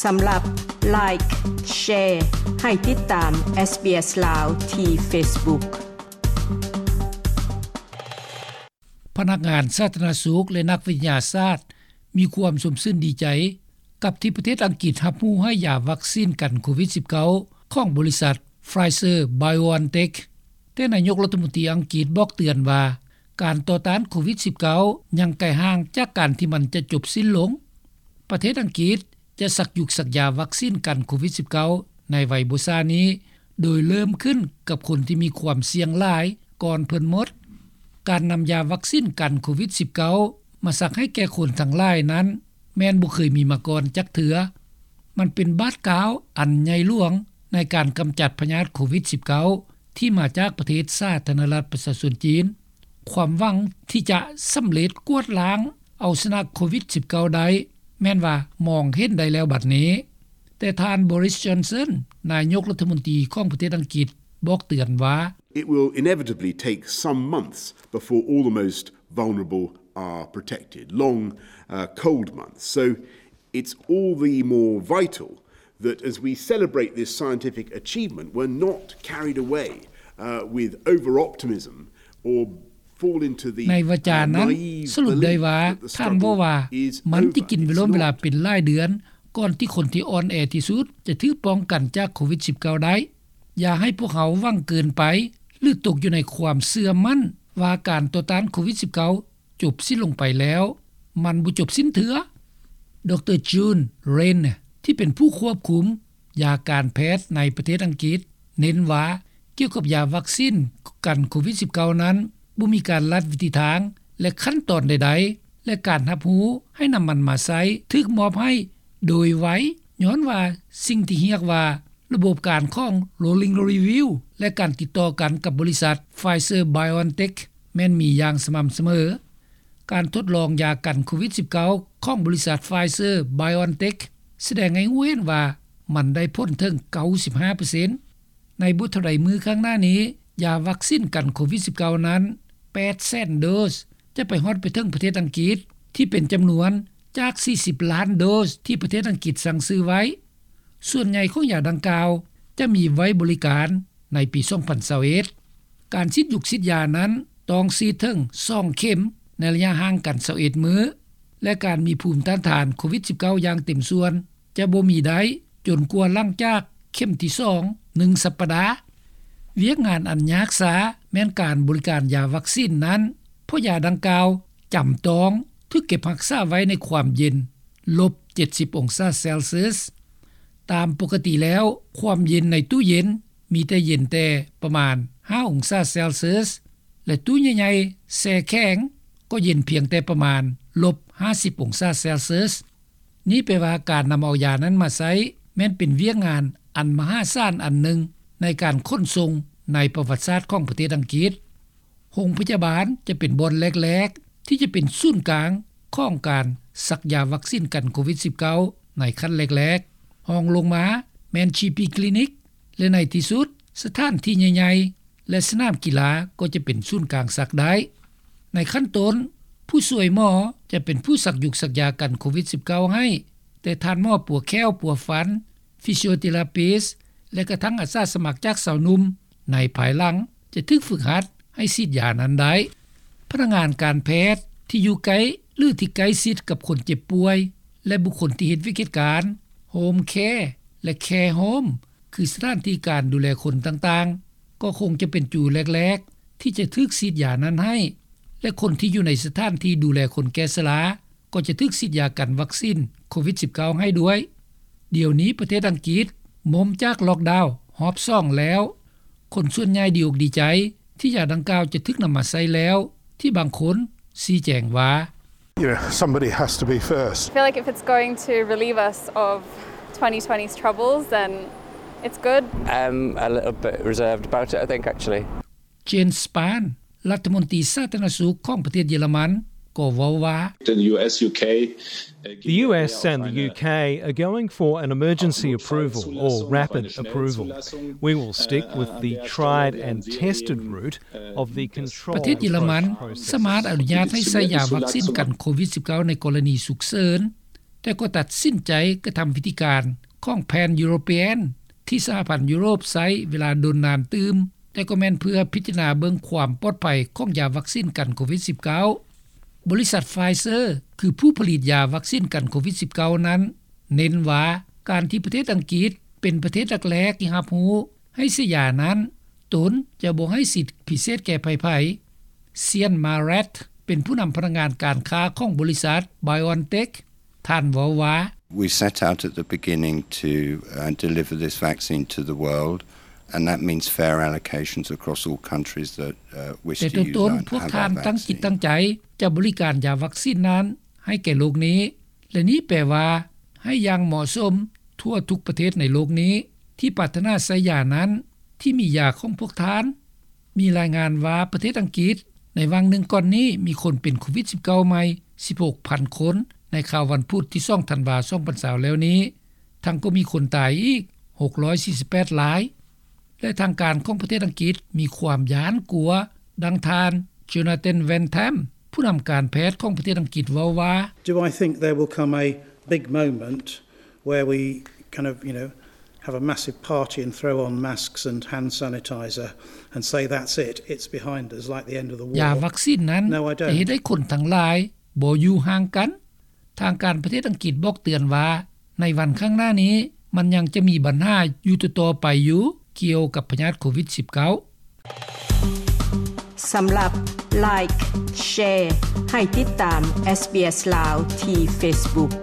ສຳລັບ Like, Share ໃຫ້ຕິດຕາມ SBS ລາວ ທີ່ Facebook. ພະນັກງານສາທາລະນະສຸກ ແລະ ນັກວິທະຍາສາດ ມີຄວາມຊົມຊື່ນດີໃຈ ກັບທີ່ປະເທດອັງກິດຮັບຮູ້ໃຫ້ຢາວັກຊີນກັນໂຄວິດ-19 ຂອງບໍລິສັດ Pfizer-BioNTech, ແຕ່ນາຍົກລັດຖະມົນຕີອັງກິດບອກເຕືອນວ່າ ການຕໍ່ຕ້ານໂຄວິດ-19 ຍັງໄກຫ່າງຈາກການທີ່ມັນຈະຈົບສິ້ນລົງ. ປະເທດອັງກິດຈະສັກຍຸກສັກຢາວັກຊີນກັນໂຄວິດ-19 ໃນໄວບໍ່ຊ້ານີ້, ໂດຍເລີ່ມຂຶ້ນກັບຄົນທີ່ມີຄວາມສ່ຽງຫຼາຍກ່ອນເພິ່ນໝົດ. ການນຳຢາວັກຊີນກັນໂຄວິດ-19 ມາສັກໃຫ້ແກ່ຄົນທັງຫຼາຍນັ້ນ ແມ່ນບໍ່ເຄີຍມີມາກ່ອນຈັກເທື່ອ. ມັນເປັນບາດກ້າວອັນໃຫຍ່ຫຼວງໃນການກຳຈັດພະຍາດໂຄວິດ-19 ທີ່ມາຈາກປະເທດສາທາລະນະລັດປະຊາຊົນຈີນ. ຄວາມຫວັງທີ່ຈະສຳເລັດກວາດລ້າງເອົາຊະນະໂຄວິດ-19 ໄດ້ ແມ່ນວ່າມອງເຫັນໄດ້ແລ້ວບັດນີ້. ແຕ່ທ່ານ Boris Johnson ນາຍົກລັດຖະມົນຕີຂອງປະເທດອັງກິດ ບອກເຕືອນວ່າ It will inevitably take some months before all the most vulnerable are protected. Long, uh, cold months. So it's all the more vital that as we celebrate this scientific achievement, we're not carried away, uh, with over-optimism or fall into the, uh, naive belief that the struggle is over. ໃນວາຈານັ້ນ ສະຫຼຸບໄດ້ວ່າ ທ່ານເວົ້າວ່າ ມັນຈະກິນເວລາເປັນຫຼາຍເດືອນ ກ່ອນທີ່ຄົນທີ່ອ່ອນແອທີ່ສຸດຈະຖືກປ້ອງກັນຈາກໂຄວິດ-19 ໄດ້. ຢ່າໃຫ້ພວກເຮົາຫວັງເກີນໄປ ຫຼື ຕົກຢູ່ໃນຄວາມເຊື່ອໝັ້ນວ່າການຕໍ່ຕ້ານໂຄວິດ-19 ຈົບສິ້ນລົງໄປແລ້ວ. ມັນບໍ່ຈົບສິ້ນເທື່ອ. ດຣ June Raine ທີ່ເປັນຜູ້ຄວບຄຸມຢາການແພດໃນປະເທດອັງກິດ ເນັ້ນວ່າ ກ່ຽວກັບຢາວັກຊີນກັນໂຄວິດ-19 ນັ້ນ ບໍ່ມີການລັດວິທີທາງ ແລະ ຂັ້ນຕອນໃດໆ ແລະ ການຮັບຮູ້ໃຫ້ນຳມັນມາໃຊ້ຖືກມອບໃຫ້ໂດຍໄວ ຍ້ອນວ່າສິ່ງທີ່ຮຽກວ່າ ລະບົບການຂອງ Rolling Review ແລະ ການຕິດຕໍ່ກັນກັບບໍລິສັດ Pfizer-BioNTech ແມ່ນມີຢ່າງສະໝ່ຳສະເໝີ. ການທົດລອງຢາກັນໂຄວິດ-19 ຂອງບໍລິສັດ Pfizer-BioNTech ສະແດງໃຫ້ຮູ້ເຫັນວ່າມັນໄດ້ຜົນເຖິງ 95% ໃນບໍ່ເທົ່າໃດມື້ຂ້າງໜ້ານີ້, ຢາວັກຊີນກັນໂຄວິດ-19 ນັ້ນ ແປດແສນໂດສ ຈະໄປຮອດໄປເຖິງປະເທດອັງກິດ ທີ່ເປັນຈຳນວນຈາກ ສີ່ສິບລ້ານໂດສ ທີ່ປະເທດອັງກິດສັ່ງຊື້ໄວ້. ສ່ວນໃຫຍ່ຂອງຢາດັ່ງກ່າວຈະມີໄວ້ບໍລິການໃນປີ ສອງພັນຊາວເອັດ. ການສີດຍຸກສີດຢານັ້ນຕ້ອງສີດເຖິງ ສອງເຂັມ ໃນໄລຍະຫ່າງກັນ ຊາວເອັດມື້ ແລະ ການມີພູມຕ້ານທານໂຄວິດ-19 ຢ່າງເຕັມສ່ວນ ຈະບໍ່ມີໄດ້ຈົນກວ່າຫຼັງຈາກເຂັມທີສອງ ໜຶ່ງສັບປະດາ. ວຽກງານອັນຍາກຊ້າແມ່ນການບໍລິການຢາວັກຊີນນັ້ນ ເພາະຢາດັ່ງກ່າວຈຳຕ້ອງຖືກເກັບຮັກສາໄວ້ໃນຄວາມເຢັນ ລົບເຈັດສິບອົງສາເຊລຊຽສ. ຕາມປົກກະຕິແລ້ວ ຄວາມເຢັນໃນຕູ້ເຢັນມີແຕ່ເຢັນແຕ່ປະມານ ຫ້າອົງສາເຊລຊຽສ ແລະ ຕູ້ໃຫຍ່ໆແຊ່ແຂງກໍເຢັນພຽງແຕ່ປະມານ ລົບຫ້າສິບອົງສາເຊລຊຽສ. ນີ້ແປວ່າການນຳເອົາຢານັ້ນມາໃຊ້ ແມ່ນເປັນວຽກງານອັນມະຫາສານອັນໜຶ່ງໃນການຂົນສົ່ງໃນປະຫວັດສາດຂອງປະເທດອັງກິດ. ໂຮງພະຍາບານຈະເປັນບ່ອນແລກໆ ທີ່ຈະເປັນສູນກາງຂອງການສັກຢາວັກຊີນກັນໂຄວິດ-19 ໃນຂັ້ນແລກໆ. ຮອງລົງມາແມ່ນ GP Clinic ແລະ ໃນທີ່ສຸດ ສະຖານທີ່ໃຫຍ່ໆ ແລະ ສະໜາມກິລາກໍຈະເປັນສູນກາງສັກໄດ້. ໃນຂັ້ນຕົ້ນ, ຜູ້ຊ່ວຍໝໍຈະເປັນຜູ້ສັກຍຸກສັກຢາກັນໂຄວິດ-19 ໃຫ້, ແຕ່ທ່ານໝໍປົວແຂ້ວປົວຟັນ, ຟີຊິໂອເທຣາປິສ ແລະ ກະທັ່ງອາສາສະໝັກຈາກຊາວໜຸ່ມໃນພາຍຫຼັງຈະຖືກຝຶກຫັດໃຫ້ສີດຢານັ້ນໄດ້. ພະນັກງານການແພດທີ່ຢູ່ໃກ້ ຫຼື ທີ່ໃກ້ຊິດກັບຄົນເຈັບປ່ວຍ ແລະ ບຸກຄົນທີ່ເຮັດວຽກເຮັດການ, Home Care ແລະ Care Home ຄືສະຖານທີ່ການດູແລຄົນຕ່າງໆ ກໍຄົງຈະເປັນຈູແລກໆ ທີ່ຈະຖືກສີດຢານັ້ນໃຫ້ ແລະ ຄົນທີ່ຢູ່ໃນສະຖານທີ່ດູແລຄົນແກ່ຊະລາ ກໍຈະຖືກສີດຢາກັນວັກຊີນໂຄວິດ-19 ໃຫ້ດ້ວຍ. ດຽວນີ້ປະເທດອັງກິດມົ້ມຈາກລັອກດາວຮອບສອງແລ້ວ. ຄົນສ່ວນໃຫຍ່ດີອົກດີໃຈທີ່ຢາດັ່ງກ່າວຈະຖືກນຳມາໃຊ້ແລ້ວ, ທີ່ບາງຄົນຊີ້ແຈງວ່າ You know, somebody has to be first. I feel like if it's going to relieve us of twenty twenty's troubles, then it's good. I'm a little bit reserved about it, I think, actually. Jens Spahn ລັດຖະມົນຕີສາທາລະນະສຸກຂອງປະເທດເຢຍລະມັນ ກໍເວົ້າວ່າ The U S, U K, uh, The U S and the U K are going for an emergency approval or rapid approval. We will stick with the tried and tested route of the controlled approach process. ປະເທດເຢຍລະມັນສາມາດອະນຸຍາດໃຫ້ໃຊ້ຢາວັກຊີນກັນໂຄວິດ-19 ໃນກໍລະນີສຸກເສີນ. ແຕ່ກໍຕັດສິນໃຈກະທຳວິທີການຂອງແຜນຢູໂຣປຽນ ທີ່ສະຫະພັນຢູໂຣບໃຊ້ເວລາດົນນານຕື່ມ, ແຕ່ກໍແມ່ນເພື່ອພິຈາລະນາເບິ່ງຄວາມປອດໄພຂອງຢາວັກຊີນກັນໂຄວິດ-19. ບໍລິສັດ Pfizer ຄືຜູ້ຜະລິດຢາວັກຊີນກັນໂຄວິດ-19 ນັ້ນ ເນັ້ນວ່າການທີ່ປະເທດອັງກິດເປັນປະເທດແລກໆທີ່ຮັບຮູ້ໃຫ້ໃຊ້ຢານັ້ນ, ຕົນຈະບໍ່ໃຫ້ສິດພິເສດແກ່ໃຜໆ. ເຊຍນ ມາແຣດ ເປັນຜູ້ນຳພະນັກງານການຄ້າຂອງບໍລິສັດ BioNTech. ທ່ານເວົ້າວ່າ We set out at the beginning to, uh, deliver this vaccine to the world, and that means fair allocations across all countries that, uh, wish to use it and have a vaccine. ແຕ່ຕົ້ນໆ ພວກທ່ານຕັ້ງຈິດຕັ້ງໃຈຈະບໍລິການຢາວັກຊີນນັ້ນໃຫ້ແກ່ໂລກນີ້ ແລະນີ້ແປວ່າໃຫ້ຢ່າງເໝາະສົມທົ່ວທຸກປະເທດໃນໂລກນີ້ ທີ່ປາດຖະໜາໃຊ້ຢານັ້ນ ທີ່ມີຢາຂອງພວກທ່ານ. ມີລາຍງານວ່າປະເທດອັງກິດໃນຫວ່າງໜຶ່ງກ່ອນນີ້ມີຄົນເປັນໂຄວິດ-19 ໃໝ່ ສິບຫົກພັນຄົນ ໃນຄ່ຳວັນພຸດທີສອງທັນວາ ສອງພັນຊາວ ແລ້ວນີ້ ທັງກໍມີຄົນຕາຍອີກ ຫົກຮ້ອຍສີ່ສິບແປດລາຍ ແລະທາງການຂອງປະເທດອັງກິດມີຄວາມຢ້ານກົວ. ດັ່ງທ່ານ Jonathan Van Tam ຜູ້ນຳການແພດຂອງປະເທດອັງກິດເວົ້າວ່າ Do I think there will come a big moment where we kind of, you know, have a massive party and throw on masks and hand sanitizer and say, that's it, it's behind us, like the end of the war? ຢາວັກຊີນນັ້ນຈະເຮັດໃຫ້ຄົນທັງຫຼາຍບໍ່ຢູ່ຫ່າງກັນ. ທາງການປະເທດອັງກິດບອກເຕືອນວ່າ ໃນວັນຂ້າງໜ້ານີ້ ມັນຍັງຈະມີບັນຫາຢູ່ຕໍ່ໆໄປຢູ່ ກ່ຽວກັບພະຍາດໂຄວິດ-19. ສຳລັບ Like, Share ໃຫ້ຕິດຕາມ SBS ລາວ ທີ່ Facebook.